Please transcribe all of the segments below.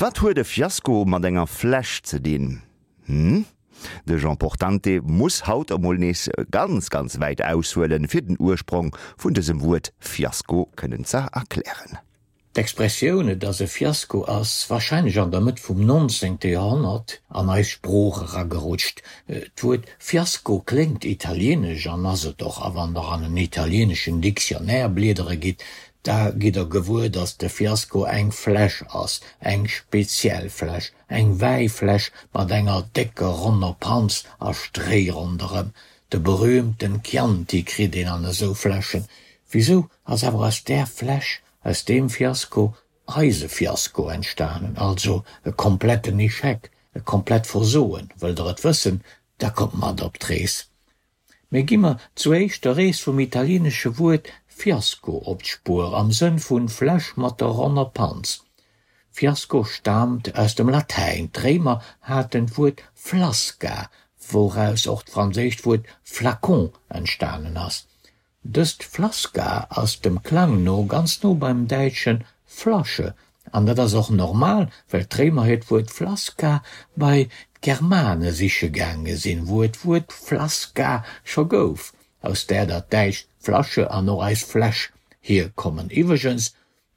Wat huet e Fiasko mat enger Fläsch ze dinn? Hm? De Jean Portante muss haut emol nees ganz, ganz wäit aushuelen, fir den Ursprong vun dësem Wuert Fiasko kënnen ze erklären. D'Expressioun et ass e Fiasko ass warscheinlech an der Mëtt vum 19. Joerhonnert an eis Sprooch eragerutscht. D'Wuert Fiasko kléngt italienesch an ass et och, a wann der an en italieneschen Dictionnaire bliedere gitt, da gitt der gewuer, datt de Fiasko eng Fläsch ass, eng speziell Fläsch, eng Wäifläsch mat enger décker ronner Panz a Stréi ronderëm. De berühmten Chianti kritt een an esou Fläschen. Wisou ass awer aus där Fläsch, aus deem Fiasko, eise Fiasko entstanen, also e kompletten Echec, e komplett Versoen? Wëllt der et wëssen, da kommt mat op d'Rees. Mee gi mer zuéischt der Rees vum italienesche Wuert fiasco op d'Spuer, am Sënn vun Fläsch mat der ronner Panz. Fiasco staamt aus dem Latäin, d'Réimer haten d'Wuert flasca, wouraus och d'franséischt Wuert flacon entstanen ass. Dëst Flasca ass dem Klang no ganz no beim däitsche Flasche, an dat ass och normal, well d'Réimer hiert Wuert Flasca bei d'Germane siche gaange sinn, wou et d'Wuert Flasca scho gouf, aus där dat däitscht Flasche an och eis Fläsch hierkommen. Iwwregens,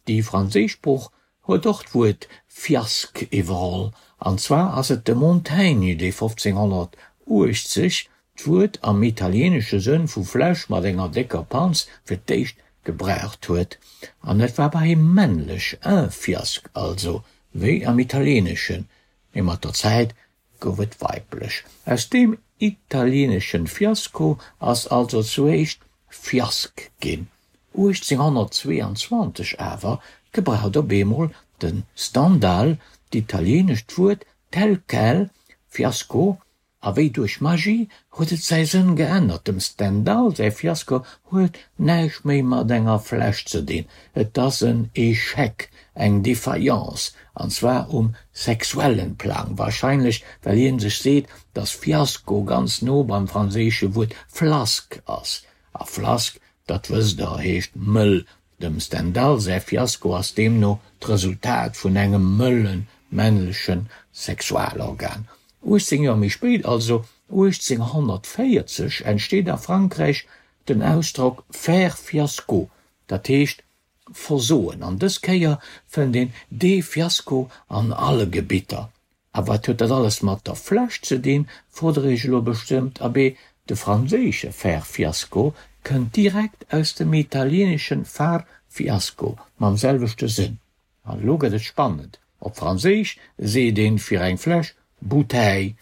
Déi franséisch Sprooch huet och d'Wuert Fiasque iwwerholl, an zwar ass et de Montaigne, dee 1580 d'Wuert am italieenesche Sënn vu Fläsch mat enger décker Panz fir d'éischt gebraucht huet. An et war bei him männlech, un fiasque also, wéi am Italieeneschen, mee mat der Zäit gouf et weiblech. Aus deem italieeneschen Fiasco ass also zuéischt Fiask ginn. 1822 awer gebraucht op eemol de Stendhal d'italienescht Wuert tel quel, Fiasco, A wéi duerch Magie huet et säi Sënn geännert. Dem Stendhal säi Fiasko huet näischt méi mat enger Fläsch ze dinn, et ass en Echec, eng Defaillance, an zwar um sexuellen Plang, warscheinlech well hien sech seet, dass Fiasko ganz no beim franséische Wuert flasque ass, a flasque, dat wësst der, heescht mëll Dem Stendhal säi Fiasko ass deemno d'Resultat vun engem mëllen männleche Sexualorgan. 18 Joer méi spéit, also 1840, entsteet a Frankräich den Ausdrock faire fiasco, dat heescht versoen. An dës Kéier fënnt een dee Fiasko an alle Gebitter. A wat huet dat alles mat der Fläsch ze dinn, frot der iech elo bestëmmt. Abee, de franséische faire fiasco kënnt direkt aus dem italieneschen far fiasco mam selwechte Sënn. An elo gëtt et spannend, Op Franséisch seet een fir eng Fläsch bouteille.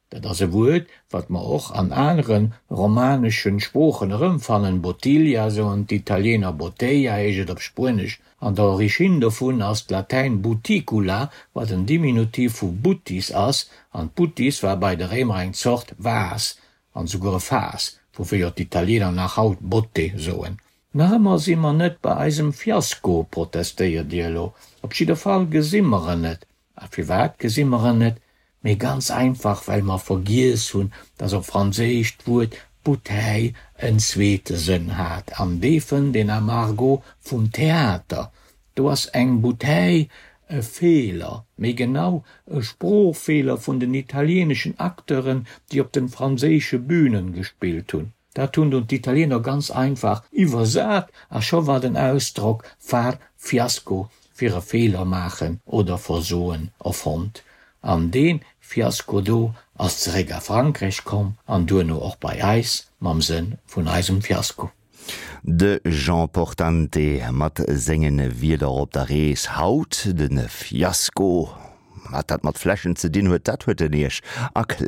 Dat ass e Wuert, wat mer och an anere romaneschen Sproochen erëmfannen, bottiglia soen d'Italiener, botella heescht et op Spuenesch. An der Origine dovun ass d'Latäin buticula, wat en Diminutiv vu buttis ass, an d'Buttis war bei de Réimer eng Zort Vas, an souguer e Faass, woufir jo d'Italiener nach haut botte soen. Nach ëmmer si mer net bei eisem Fiasko, protestéiert Dir elo. Op jidder Fall gesi mer en net. A firwat gesi mer en net? Mee ganz einfach, well mer vergiess hunn, dass op Franséisch d'Wuert bouteille en zweete Sënn hat, an dee fënnt een am Argot vum Theater. Do ass eng bouteille e Feeler, méi genau e Sproochfeeler vun den italieeneschen Acteuren, déi op den franséische Bünen gespillt hunn. Dat hunn dunn d'Italiener ganz einfach iwwersat a scho war den Ausdrock far fiasco fir e Feeler maachen oder versoen erfonnt. An dee Fiasko do ass zeréck a Frankräich komm an duerno och bei eis mam Sënn vun eisem Fiasko. De Jean Portante mat senge Wierder op der Rees haut, de Fiasko. Wat dat mat Fläschen ze dinn huet, dat huet en Iech erkläert.